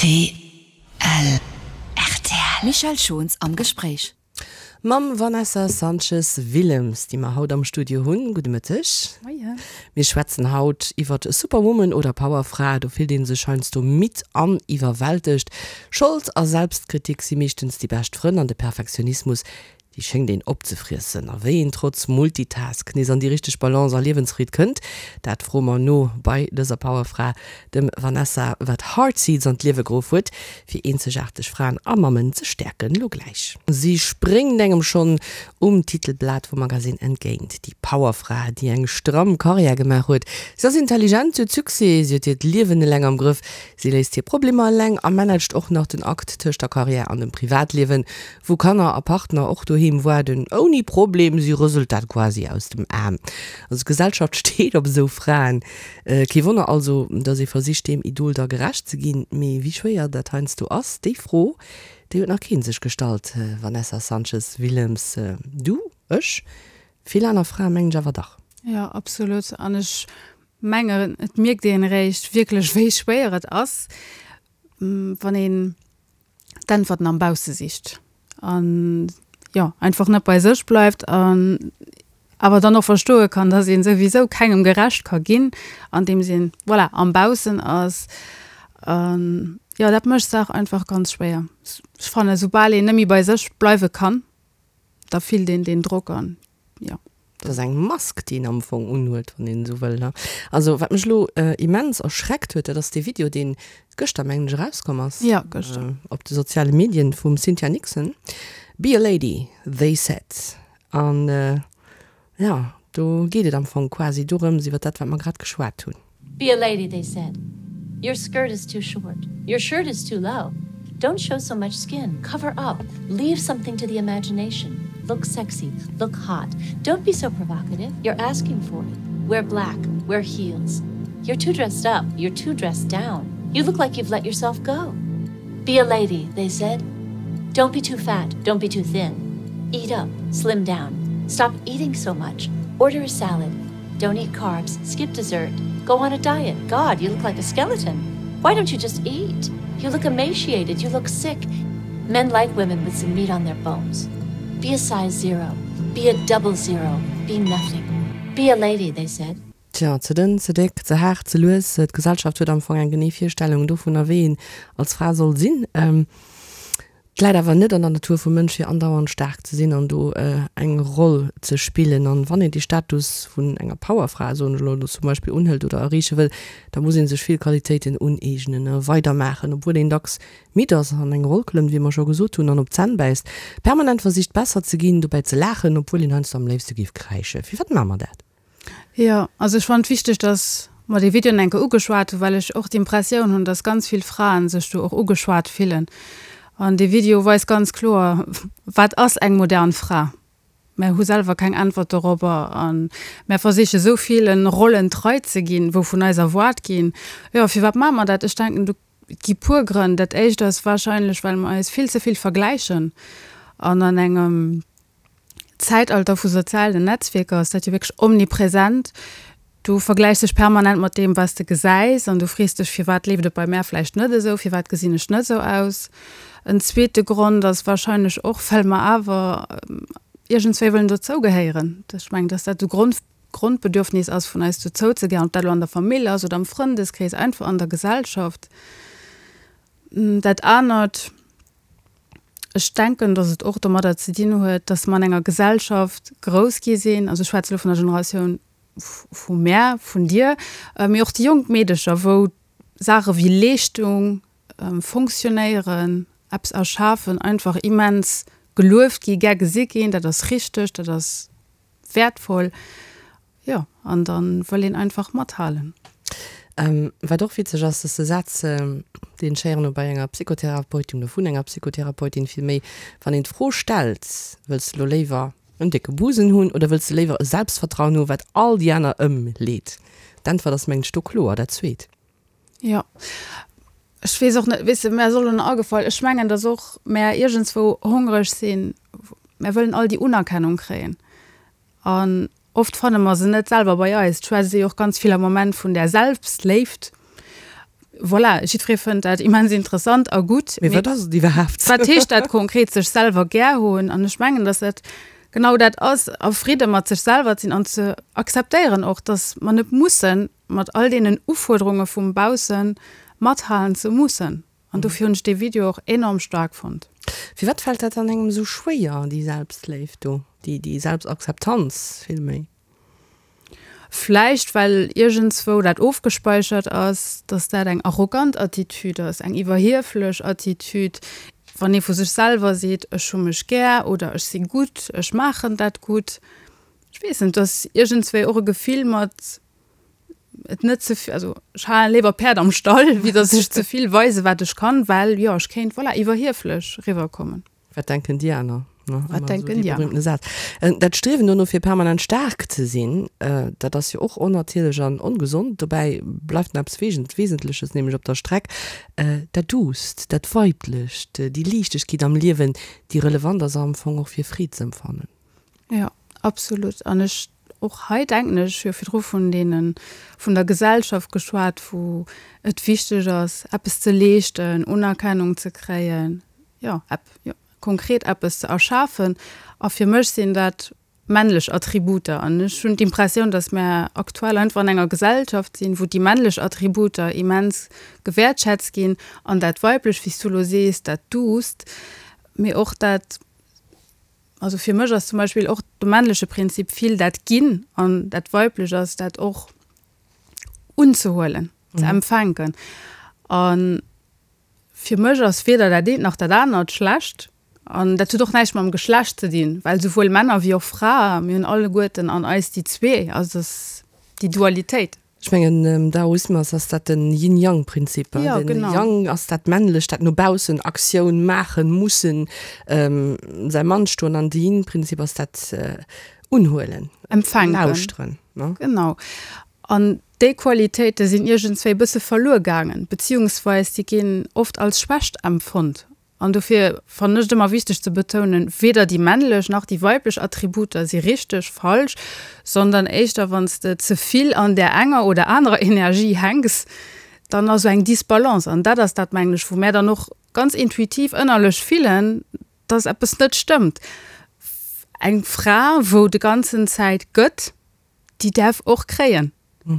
Rtl. Rtl. Michèle Schons am Gespréich. Mam Vanessa Sanchez Willems, déi mer haut am Studio hunn. Gudde Mëtteg. Moien. Mir schwätzen haut iwwert Superwoman oder Powerfra. Do fillt ee sech heiansdo midd an iwwerwältegt. Schold a Selbstkritik si meeschtens déi bescht Frënn an de Perfektionismus, Déi schéngt een opzefriessen. A wéi een trotz Multitask nees an déi richteg Balance a Liewensfreed kënnt, dat froe mer no bei dëser Powerfra, dem Vanessa, wat Heartseeds an d'Liewe geruff huet, fir eenzegaarteg Fraen a Mammen ze stäerken. Lo gläich. Si spréngt engem schonn um Titelblat vum Magasinn entgéint, déi Powerfra, déi eng stramm Karriär gemaach huet. Si ass intelligent, si huet Succès, si huet hiert Liewen eleng am Grëff, si léist hir Problemer eleng a managt och nach den Akt tëscht der Karriär an dem Privatliewen. Wou Kanner a Partner och doheem waarden, ouni Problem, si rëselt dat quasi aus dem Aarm. Also d'Gesellschaft steet op esou Fraen. Kee Wonner also, datt ee versicht deem Idol da gerecht ze ginn. Mee wéi schwéier dat heiansdo ass, déi Fro, déi huet nach kee sech gestallt. Vanessa Sanchez Willems, Du, ech, vill aner Frae mengen ech awer dach. Jo, absolut. An ech mengen, et mierkt een eréischt wierklech, wéi schwéier et ass, wann een d'Äntwerten am Bausse sicht an jo einfach net bei sech bleift an awer dann och verstoe kann, dass een souwisou kengem gerecht ka ginn, andeems een voilà am Baussen ass. An jo dat mécht d'Saach einfach ganz schwéier. Ech fannen, soubal een net méi bei sech bleiwe kann, da fillt een deen Drock an jo. Dat ass eng Mask, déi een am Fong unhuet, wann een esou wëll, ne? Also, wat mech elo immens erschreckt huet, dat ass dee Video, deen gëschter, mengen ech, erauskomm ass. Jo, gëschter. Op de soziale Medien vum Cynthia Nixon. Be a lady, they said. An, jo, do geet et am Fong quasi dorëms, iwwer dat, wat mer grad geschwat hunn. Be a lady, they said. Your skirt is too short. Your shirt is too low. Don't show so much skin. Cover up. Leave something to the imagination. Look sexy. Look hot. Don't be so provocative. You're asking for it. Wear black. Wear heels. You're too dressed up. You're too dressed down. You look like you've let yourself go. Be a lady, they said. Don't be too fat. Don't be too thin. Eat up. Slim down. Stop eating so much. Order a salad. Don't eat carbs. Skip dessert. Go on a diet. God, you look like a skeleton. Why don't you just eat? You look emaciated. You look sick. Men like women with some meat on their bones. Be a size zero. Be a double zero. Be nothing. Be a lady, they said. Tja, ze dënn, ze déck, ze haart, ze lues, d'Gesellschaft huet am Fong eng genee Virstellung dovunner, wéi een als Fra soll sinn. Et läit awer net an der Natur vum Mënsch, fir andauernd staark ze sinn an do eng Roll ze spillen. An wann een dee Status vun enger Powerfra, soen ech elo zum Beispill, unhëlt oder erreeche wëll, da muss ee sech vill Qualitéiten uneegnen a weidermaachen, obwuel een dacks midd ass, an eng Roll klëmmt, wéi mer scho gesot hunn, an op d'Zänn bäisst, permanent versicht besser ze ginn, dobäi ze laachen, obwuel een heiansdo am léifste géif kräischen. Firwat maache mer dat? Jo, also ech fannen et wichteg, dass mer dee Video enke ugeschwat hunn, well ech och d'Impressioun hunn, dass ganz vill Fraen sech do och ugeschwat fillen. An dee Video weist ganz kloer, wat ass eng modern Fra? Mär hu selwer keng Äntwert dorobber a mär versiche sou villen Rollen trei ze ginn, wou vun eis erwaart ginn. Jo, firwat maache mer dat? Ech denken, do gi puer Grënn. Dat éischt ass warscheinlech, well mer eis vill ze vill vergläichen an an engem Zäitalter vu sozialen Netzwierker ass dat jo wierklech omnipresent. Du vergläichs dech permanent mat deem, wat s de gesäis an du frees dech, firwat leeft et bei mär vläicht net esou, firwat gesinn ech net esou aus. En zweete Grond ass warscheinlech och, well mer awer iergendswéi wëllen dozougehéieren. Ech mengen, dass dat e Grond, Grondbedürfnis ass vun eis, dozouzegehéieren, ob dat elo an der Famill ass oder am Frëndeskrees, einfach an der Gesellschaft. Dat anert. Ech denken, datt et och domadder ze dinn huet, datt mer an enger Gesellschaft grouss gi sinn, also ech schwätze elo vun der Generatioun vu mär, vun dir, mee och déi jonk Meedecher, wou Saache wéi Leeschtung, Fonctionnéieren, eppes erschafen einfach immens gelueft gi, gär gesi ginn, dat ass richteg, dat ass wäertvoll. Jo, an da wëll een einfach mathalen. Wat och witzeg ass, dass de Saz, deen ech héieren hu bei enger Psychotherapeutin oder vun enger Psychotherapeutin villméi, wann een d'Fro stellt, Wëlls de lo léiwer en décke Busen hunn oder wëlls de léiwer e Selbstvertrauen hu wat all déi aner ëmleet? D'Äntwert ass mengen ech do kloer, dat zweet. Jo, ech weess och net, weess de, mär ass och elo nach agefall, ech mengen, dass och mär iergendswou hongreg sinn, mär wëllen all déi Unerkennung kréien. An oft fanne mer se net selwer bei eis. Et schwätzt ee jo och ganz vill am Moment vun där Selbstléift. Voilà, jiddweree fënnt dat immens interessant a gutt. Mee wat ass et iwwerhaapt? Wat heescht dat konkret, sech selwer gär hunn? An ech mengen, dass dat genau dat ass, a Fridde mat sech selwer ze sinn an ze akzeptéieren och, dass mer net mussen mat all deenen Ufuerderunge vum Bausse mathalen ze mussen. An dofir hunn ech dee Video och enorm staark fonnt. Firwat fält dat dann engem esou schwéier, déi Selbstléift do, déi Selbstakzeptanz villméi? Vläicht well iergendswou dat ofgespeichert ass, dass dat eng arrogant Attitüd ass, eng iwwerhieflech Attitüd, wann ee vu sech selwer seet, ech hu mech gär oder ech si gutt, ech maachen dat gutt. Ech weess net, et ass iergendswéi och e Gefill mat et net ze vill, also ech halen léiwer Päerd am Stall, wéi dass ech ze vill weise wat ech kann, well jo ech kéint, voilà, iwwerhieflech riwwerkommen. Wat denken déi aner? Ne? Wat denken déi aner? Saz. Dat Striewen dono fir permanent staark ze sinn, dat ass jo och onnatierlech an ongesond. Dobäi bleift nach eppes Wesentleches, nämlech op der Streck, dat Duusst, dat Weiblecht, déi Liichtegkeet am Liewen, déi relevant ass am Fong och fir Freed z'empfannen. Jo, absolut. An ech, och hei denken ech, ech hu jo virdru vun deene, vun der Gesellschaft geschwat, wou et wichteg ass, eppes ze leeschten, Unerkennung ze kréien, jo, ep, jo, konkret eppes ze erschafen. A fir mech sinn dat männlech Attributer. An ech hunn d'Impressioun, datt mär aktuell einfach an enger Gesellschaft sinn, wou déi männlech Attributer immens gewäertschätzt ginn an dat Weiblech, wéi s du elo sees, dat Duusst, mee och dat, Also fir mech ass zum Beispill och de männleche Prinzip vill dat Ginn an dat Weiblech ass dat och unzehuelen, ze empfänken. A fir mech ass weder dat eent nach dat anert schlecht. An dat huet och näischt mam Geschlecht ze dinn, well souwuel Männer wéi och Frae, mir hunn alleguerten an eis déi zwee, also dass déi Dualitéit. Ech mengen am Daoismus ass dat den Yin-Yang-Prinzip. Ja, den genau. Yang ass dat Männlecht, dat no baussen Aktioun maachen, mussen, säi Mann stoen an de Yin-Prinzip ass dat Unhuelen, Empfänken. Lauschteren. Ne? Genau. An déi Qualitéite sinn iergendswéi e bësse verluer gaangen, beziehungsweis déi ginn oft als Schwächt empfonnt. An dofir fannen ech et ëmmer wichteg ze betounen, weder déi männlech nach déi weiblech Attributer si richteg, falsch, sondern éischter wann s de ze vill an där enger oder anerer Energie hänks, dann ass esou eng Disbalance. An dat ass dat, mengen ech, wou mär dann och ganz intuitiv ënnerlech fillen, dass eppes net stëmmt. Eng Fra, wou de ganzen Zäit gëtt, déi däerf och kréien,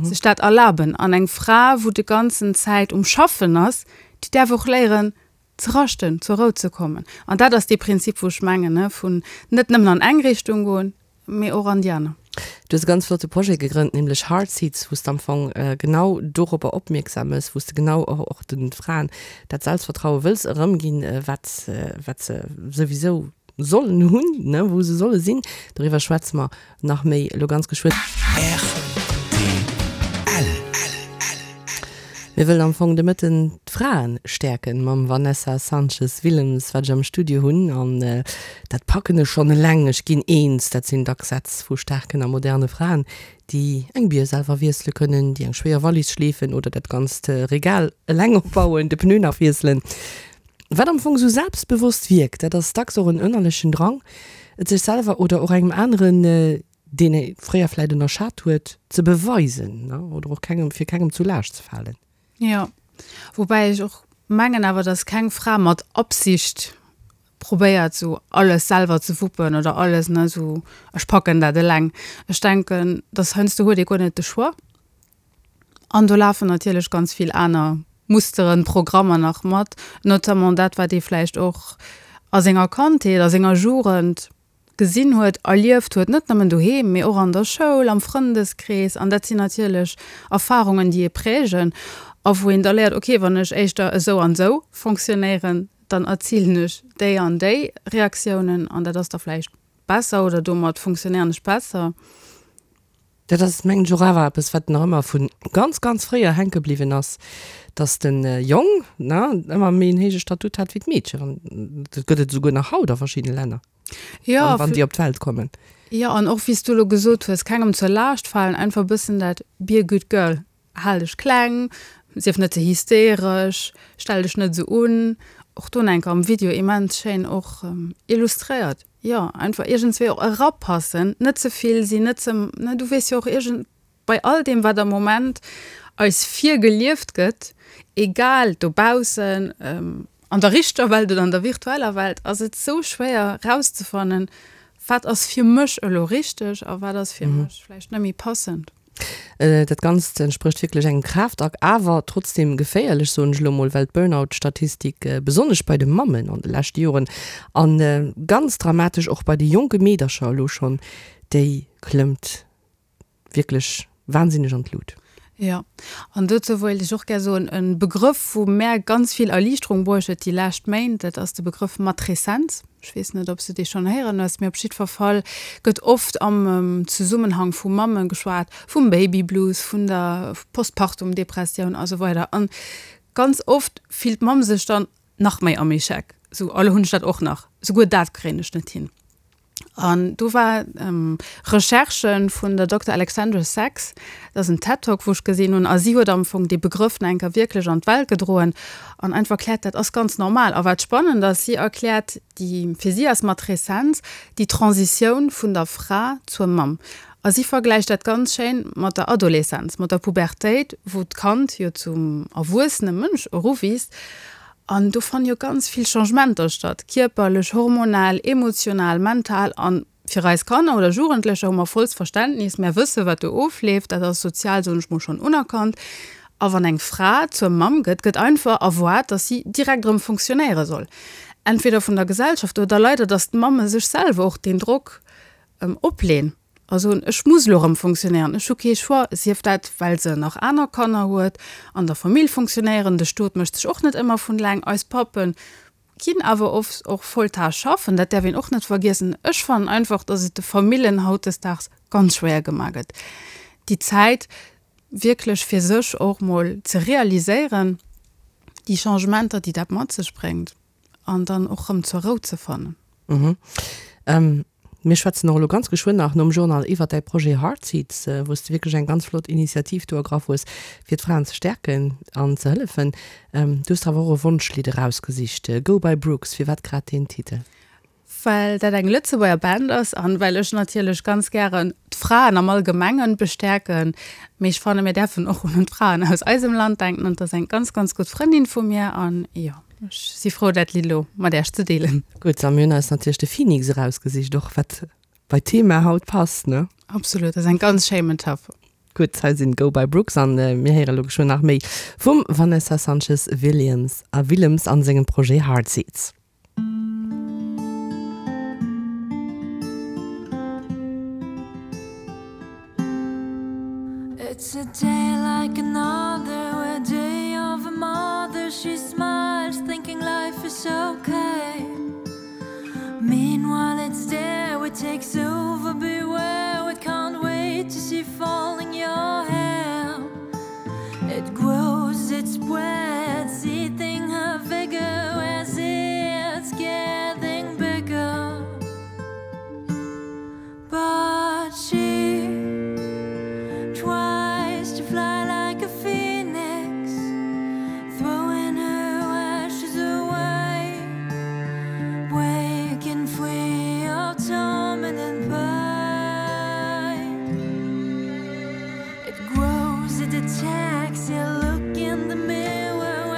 sech dat erlaben. An eng Fra, wou de ganzen Zäit um Schaffen ass, déi däerf och léieren, ze raschten, zur Rou ze kommen. An dat ass dee Prinzip, wou ech mengen, ne, vun net nëmmen an eng Richtung goen, mee och an déi aner. Du hues e ganz flotte Projet gegrënnt, nämlech Heart Seeds, wou s de am Fong genau dorobber opmierksam mëss, wou s de genau och och de Fraen dat Selbstvertraue wëlls erëmginn, wat wat se souwisou sollen hunn, ne, wou se solle sinn. Doriwwer schwätze mer Nach méi elo ganz geschwënn. Rtl. Mir wëllen am Fong de Mëtten d'Fraen stäerken mam Vanessa Sanches Willems, wat ech am Studio hunn. An dat packen ech schonn eleng, ech ginn eens. Dat sinn dacks Sätz vu staarken a moderne Fraen, déi eng Bier selwer wiessele kënnen, déi eng schwéier Wallis schleefen oder dat ganzt Regal eleng opbauen, de Pneu nach wiesselen. Wat am Fong esou selbstbewosst wierkt, dat ass dacks och en ënnerlechen Drang, et sech selwer oder och engem aneren, deen ee fréier vläit ënnerschat huet, ze beweisen oder och kengem, fir kengem zu Laascht ze falen. Jo, woubäi ech och mengen awer, dass keng Fra mat Absicht probéiert esou alles selwer ze wuppen oder alles, ne, esou ech packen dat eleng. Ech denken, dass heiansdo huet ee guer net de Choix. An do lafen natierlech ganz vill aner Musteren, Programmer nach mat, notamment dat, wat ee vläicht och a senger Kandheet, a senger Jugend gesinn huet, erlieft huet, net nëmmen doheem, mee och an der Schoul, am Frëndeskrees. An dat sinn natierlech Erfarungen, déi ee prägen a wou een da léiert, okay, wann ech éischter esou an esou fonctionnéieren, dann erzilen ech déi an déi Reaktiounen an dat ass da vläicht besser oder domat fonctionnéieren ech besser. Dat ass, mengen ech, och awer eppes, wat nach ëmmer vu ganz, ganz fréier hänke bliwwen ass, dass de Jong, ne, ëmmer méi en héije Statut hat wéi d'Meedchen. An dat gëtt et esouguer nach haut a verschiddene Länner, Jo, wann, wann déi op d'Welt kommen. Jo, an och wéi s du elo gesot hues, kengem zur Laascht falen, einfach e bëssen dat be a good girl, hal dech kleng, sief net ze hysteresch, stell dech net esou un. Och do enker am Video immens schéin och illustréiert. Jo, einfach iergendswéi och erapassen, net ze vill sinn, net ze, ne, du weess jo och iergend, bei all deem wat am Moment. eis virgelieft gëtt, egal dobaussen, an der richter Welt oder an der virtueller Welt, ass et sou schwéier rauszefannen, wat ass fir mech elo richteg a wat ass fir mech vläicht net méi passend. Dat Ganzt entsprécht wierklech engem Kraaftakt, awer trotzdeem geféierlech, soen ech elo mol, well d'Burnout-Statistik besonnesch bei de Mammen an de leschte Joren a ganz dramatesch och bei de jonke Meedercher elo schonn, déi klëmmt wierklech wahnsinneg an d'Lut. Jo, an dozou wéilt ech och gär soen, e Begrëff, wou mär ganz vill Erliichterung bruecht huet déi lescht Méint, dat ass de Begrëff Matreszenz. Ech weess net, ob s de dee schonn héieren hues, mee op jiddwer Fall gëtt oft am Zesummenhang vu Mamme geschwat, vum Babyblues, vun der Postpartum-Depressioun a sou weider. An ganz oft fillt d'Mamm sech dann nach méi am Echec, sou, oh lo hunn ech dat och nach, souguer dat kréien ech net hin. An do war Recherche vun der Dokter Alexandra Sacks, dat ass en TED-Talk, wou ech gesinn hunn, a si huet am Fong dee Begrëff nach eng Kéier wierklech an d'Welt gedroen an einfach erkläert, dat ass ganz normal. A wat spannend ass, si erkläert, déi, fir si ass Matreszenz déi Transitioun vun der Fra zur Mamm. A si vergläicht dat ganz schéin mat der Adoleszenz, mat der Pubertéit, wou d'Kand jo zum erwuessene Mënsch eruwiisst. An do fanne jo ganz vill Changementer statt, kierperlech, hormonell, emotional, mental. An fir eis Kanner oder Jugendlecher hu mer vollst Verständnis, mär wësse wat do ofleeft, dat ass sozial, soen ech mol, schonn unerkannt. A wann eng Fra zur Mamm gëtt, gëtt einfach erwaart, datt si direkt erëm fonctionnéiere soll, entweder vun der Gesellschaft oder leider, datt d'Mamme sech selwer och deen Drock opleen. A soen, ech muss elo erëm fonctionnéieren, ech hu kee Choix, sief dat, well se nach aner Kanner huet, an der Famill fonctionnéieren, de Stot mécht sech och net ëmmer vun eleng, eis Pappe ginn awer oft och Volltaasch schaffen, dat däerf een och net vergiessen. Ech fannen einfach, datt et de Famillen hautdesdaags ganz schwéier gemaach gëtt, déi Zäit wierklech fir sech och mol ze realiséieren, déi Changementer, déi dat mat sech bréngt. An dann och rëm zur Rou ze fannen. Mhm. Mir schwätzen och elo ganz geschwënn nach nom Journal iwwert däi Projet Heartseeds, wou s de wierklech eng ganz flott Initiativ do ergraff hues, fir d'Fraen ze stäerken an ze hëllefen. Du hues der awer och e Wonschlidd erausgesicht, Go by Brooks. Firwat grad deen Titel? Well dat eng Lëtzebuerger Band ass an well ech natierlech ganz gären d'Fraen am Allgemengen bestäerken. Mee ech fanne mir däerfen och un d'Fraen aus eisem Land denken an et ass eng ganz, ganz gutt Frëndin vu mir an jo. Ech si frou dat Lidd elo mat Äech ze deelen. Gutt, a mir hunn eis natierlech de Phoenix erausgesicht, och wat bei d'Thema haut passt, ne? Absolut, dat ass eng ganz schéi Metapher. Gutt, hei sinn Go by Brooks an mir héiere elo geschwënn nach méi vum Vanessa Sanchez Williams a Willems an sengem Projet Heartseeds. It's a day like another, a day of a mother. She smiles, thinking life is okay. Meanwhile, it's there, it takes over. Beware, it can't wait to see falling your hair. It grows, it spreads, eating her vigor as it's getting bigger. But she tries to fly like a phoenix, throwing her ashes away, breaking free of torment and pain. It grows, it attacks, you look in the mirror.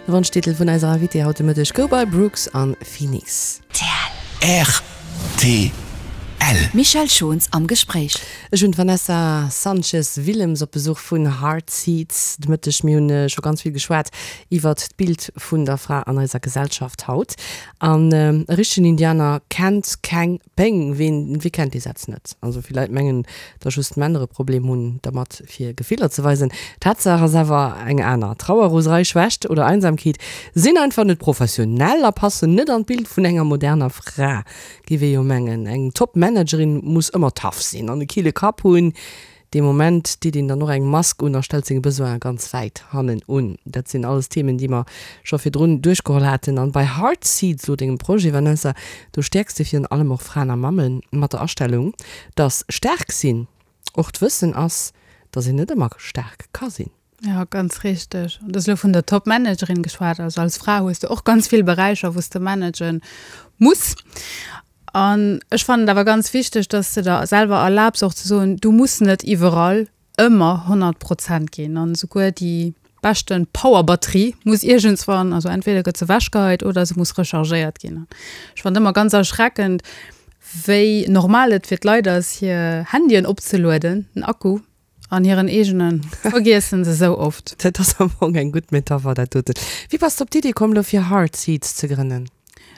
De Wonschtitel vun eiser Invitée haut de Mëtteg gouf bei Brooks an Phoenix. Rtl. Michèle Schons am Gespréich. Ech hunn d'Vanessa Sanchez Willems op Besuch vun Heart Seeds de Mëtteg. Mir hunn scho ganz vill geschwat iwwert d'Bild vun der Fra an eiser Gesellschaft haut. An e richtegen Indianer kennt keng Péng, ween, wee kennt dee Saz net? Also vill Leit mengen, datt just d'Männer e Problem hunn dermat fir Gefiller ze weisen. Tatsaach ass awer eng aner, Trauer, Roserei, Schwächt oder Einsamkeet sinn einfach net professionell a passen net an d'Bild vun enger moderner Fra, géif ee jo mengen. Eng Top-Managerin muss ëmmer tough sinn an e kille Kapp hunn. Dee Moment deet een dann och eng Mask un a stellt seng Besoine ganz wäit hannen un. Dat sinn alles Themen, déi mer scho virdrun duerchgeholl haten. An bei Heart Seeds, elo dengem Projet, Vanessa, do stäerks de virun allem och Fraen a Mamme mat der Astellung, dass staark sinn och d'Wëssen ass, dass een net ëmmer staark ka sinn. Jo, ganz richteg. An du hues elo vun der Top-Managerin geschwat. Also als Fra hues de och ganz vill Beräicher, wou s de managen muss. An ech fannen et awer ganz wichteg, dass de der selwer erlaabs och ze soen, du muss net iwwerall ëmmer 100 Prozent ginn. An esouguer déi beschte Powerbatterie muss iergendswann, also entweder gëtt se ewechgeheit oder se muss rechargéiert ginn. Ech fannen et ëmmer ganz erschreckend, wéi normal et fir d'Leit ass, hir Handyen opzelueden, den Akku. An hiren eegene vergiessen se sou oft. Dat ass am Fong eng gutt Metapher, dat doten. Wéi bass de op d'Idee komm, lo fir Hard Seeds ze grënnen?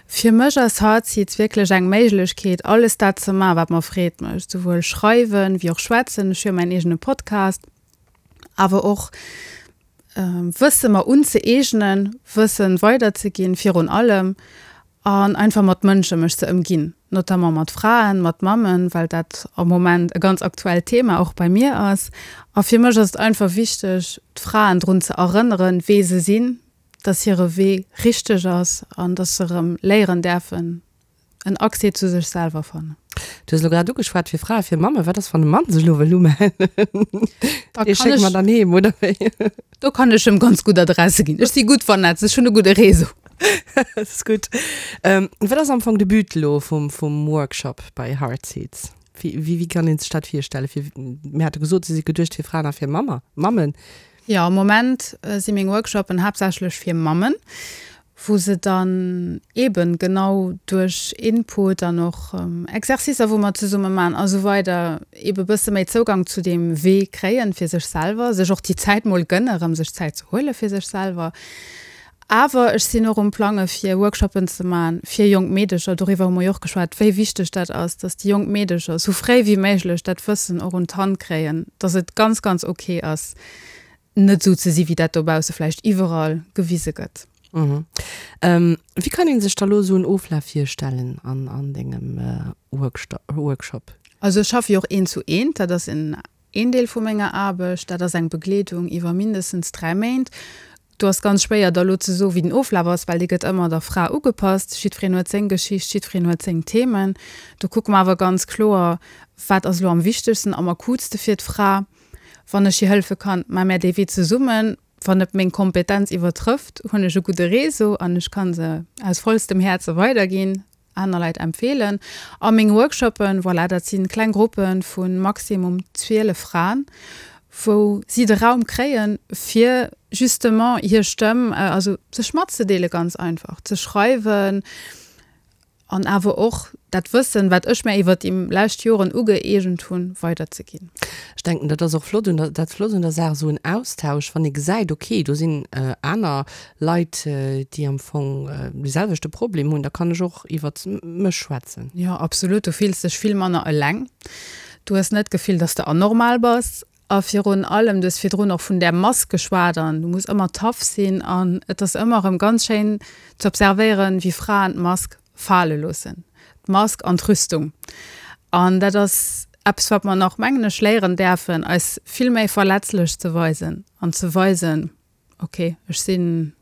Fir mech ass Hard Seeds wierklech eng Méiglechkeet, alles dat ze maachen, wat mer Freed mécht. Souwuel schreiwen, wéi och schwätzen. Ech hu jo mäin eegene Podcast. Awer och Wësse mer unzëeegnen, Wëssen weiderzeginn virun allem. An einfach mat Mënsche mech ze ëmginn, notamment mat Fraen, mat Mammen, well dat am Moment e ganz aktuellt Thema och bei mir ass. A fir mech ass et einfach wichteg, d'Fraen drun ze erënneren, wee se sinn, dass hire Wee richteg ass an dass se erëm léieren däerfen, en Accès zu sech selwer fannen. Du hues elo grad ugeschwat fir Frae, fir Mammen. Wat ass, wann e Mann sech elo wëll umellen? Da Dee kann schécke mer ech, dann heem, oder wéi? do kann ech em ganz gutt Adresse ginn. Ech si gutt vernetzt, ech hunn e gudde Réseau. Dat ass gutt. Wat ass am Fong de But elo vum, vum Workshop bei Heart Seeds? Wéi, wéi, wéi kann ee sech dat virstellen? Fir, mir hate gesot, se si geduecht fir Fraen a fir Mammer, Mammen. Jo, am Moment si meng Workshoppen haaptsächlech fir Mammen, wou se dann eeben genau duerch Input an och Exercicer, wou mer zesumme maachen a sou weider, eebe bësse méi Zougang zu deem Wee kréien fir sech selwer, sech och déi Zäit mol gënne rëm sech Zäit ze huele fir sech selwer. Awer ech sinn och um Plange fir Workshoppen ze maachen fir jonk Meedecher. Doriwwer hu mer jo och geschwat, wéi wichteg dat ass, dass déi jonk Meedecher sou fréi wéi méiglech dat Wëssen och un d'Hand kréien, dass et ganz, ganz ok ass, net esou ze si wéi dat dobausse vläicht iwwerall gewise gëtt. Wéi kann een sech da lo esou en Oflaf virstellen an dengem Workshop? Also ech schaffe jo och eent zu eent, dat ass en een Deel vu menger Aarbecht. Dat ass eng Begleedung iwwer mindestens 3 Méint. Do ass ganz schwéier da lo ze soen, wéi den Oflaf ass, well dee gëtt ëmmer der Fra ugepasst. Jiddwereen huet seng Geschicht, jiddwereen huet seng Themen. Do kucke mer awer ganz kloer, wat ass elo am wichtegsten, am akutste fir d'Fra. Wann ech hir hëllefe kann, maache mär dee Wee zesummen. Wann et meng Kompetenz iwwertrëfft, hunn ech e gudde Réseau an ech ka se aus vollstem Häerze weiderginn, aner Leit empfeelen. A meng Workshoppen, voilà, dat si kleng Gruppe vu maximum 12 Fraen, wou si de Raum kréien, fir justement hir Stëmm, also sech matzedeele ganz einfach, ze schreiwen, An awer och dat Wëssen, wat ech mär iwwert déi lescht Joren ugëeegent hunn, weiderzeginn. Ech denken, dat ass och flott un der, dat Flott un der Saach, esou en Austausch, wann ee gesäit, okay, do sinn aner Leit, déi am Fong dee selwechte Problem hunn, da kann ech och iwwert mech schwätzen. Jo, absolut. Du fills dech vill manner eleng. Du hues net d'Gefill, dass de anormal bass. A virun allem, du hues virdrun och vun där Mask geschwat an du muss ëmmer tough sinn an et ass ëmmer erëm ganz schéin ze observéieren, wéi Fraen d'Mask fale loossen, d'Mask an d'Rüstung. An dat ass eppes, wat mer nach, mengen ech, léieren däerfen, eis vill méi verletzlech ze weisen an ze weisen, ok, ech sinn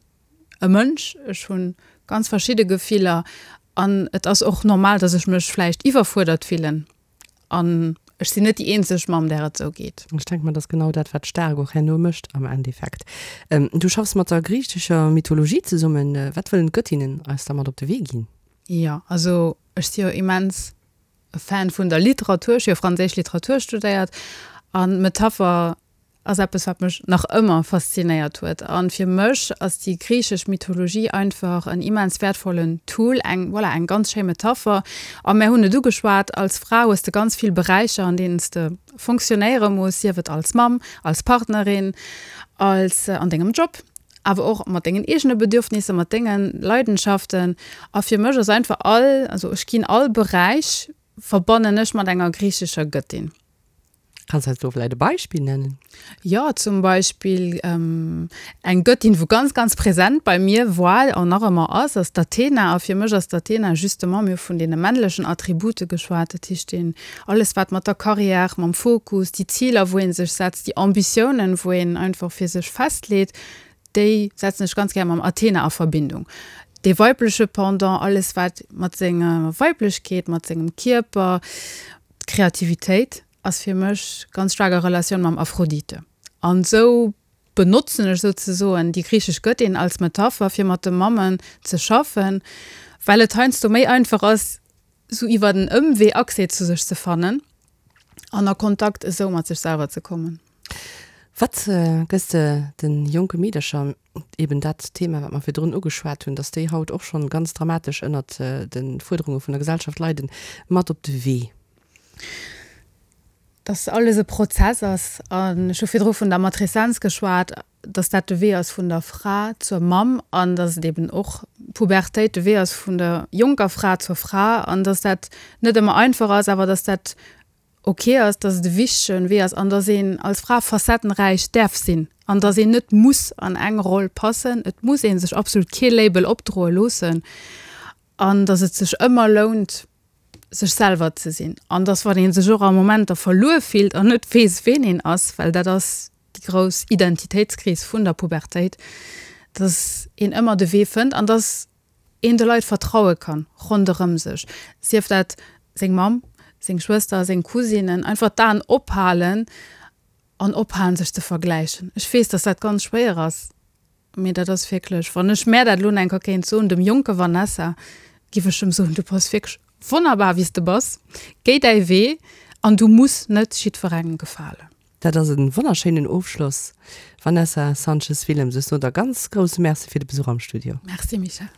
e Mënsch, ech hu ganz verschidde Gefiller an et ass och normal, dass ech mech vläicht iwwerfuerdert fillen. An ech sinn net déi eenzeg Mamm, där et esou geet. Ech denke mer, dat ass genau dat, wat staark och herno mécht am Endeffekt. Du schaffs mat der griichescher Mythologie zesummen. Wat wëllen d'Göttinnen eis da mat op de Wee ginn? Jo, also ech si jo immens e Fan vun der Literatur. Ech hu jo franséisch Literatur studéiert an d'Metapher. ass eppes, wat mech nach ëmmer faszinéiert huet. A fir mech ass déi griichesch Mythologie einfach en immens wäertvollen Tool, eng, voilà, eng ganz schéi Metapher. A mär hunn et ugeschwat, als Fra hues de ganz vill Beräicher, an deenen s de fonctionnéiere muss, sief et als Mamm, als Partnerin, als an dengem Job, awer och mat dengen eegene Bedürfnisser, mat denge Leidenschaften. A fir mech ass einfach all, also ech ginn all Beräich verbannen ech mat enger griichescher Gëttin. Kanns eis do vläit e Beispill nennen? Jo, zum Beispill eng Gëttin, wou ganz, ganz präsent bei mir war an nach ëmmer ass, ass d'Athena. A fir mech ass d'Athena justement, mir hu vun deene männlechen Attribute geschwat, dat heescht deen, alles wat mat der Carrière, mam Fokus, déi Ziler wou ee sech setzt, déi Ambitiounen, wou een einfach fir sech festleet, déi setzen ech ganz gär mam Athena a Verbindung. Dee weibleche Pendant, alles wat mat senger Weiblechkeet, mat sengem Kierper, D'Kreativitéit ass fir mech ganz staark a Relatioun mam Aphrodite. An esou benotzen ech souzesoen déi griichesch Gëttin als Metapher, fir mat de Mammen ze schaffen, well et heiansdo méi einfach ass, esou iwwer en Ëmwee Accès zu sech ze fannen an a Kontakt esou mat sech selwer ze kommen. Wat gëss de de jonke Meedercher, eben dat Thema, wat mer virdrun ugeschwat hunn, dass déi haut och schonn ganz dramatesch ënnert de Fuerderunge vun der Gesellschaft leiden, mat op de Wee? Dass alles e Prozess ass. An ech hu virdru vun der Matreszenz geschwat, dass dat de Wee ass vun der Fra zur Mamm an dass et eben och d'Pubertéit de Wee ass vun der jonker Fra zur Fra an dass dat net ëmmer einfach ass, awer dass dat ok ass, dass et e wichtegen Wee ass an dass een als Fra facettenräich däerf sinn an dass een net muss an eng Roll passen. Et muss ee sech absolut kee Label opdroe loossen an dass et sech ëmmer lount, sech selwer ze sinn an dass wann ee sech och a Momenter verluer fillt an net weess, ween een ass, well dat ass déi grouss Identitéitskris vun der Pubertéit, dass een ëmmer de Wee fënnt an dass een de Leit vertraue kann ronderëm sech, sief dat seng Mamm, seng Schwëster, seng Cousinen, einfach d'Aen ophalen an ophalen sech ze vergläichen. Ech weess, dass dat ganz schwéier ass, mee dat ass wierklech, wann ech mär dat elo nach eng Kéier kéint soen, dem jonke Vanessa, giff ech em soen, du bass wierklech wonnerbar wéi s de bass, géi däi Wee an du muss net jiddwerengem gefalen. Dat ass e wonnerschéinen Ofschloss. Vanessa Sanchez-Willems, ech soen der ganz grousse Merci fir de Besuch am Studio. Merci Michèle.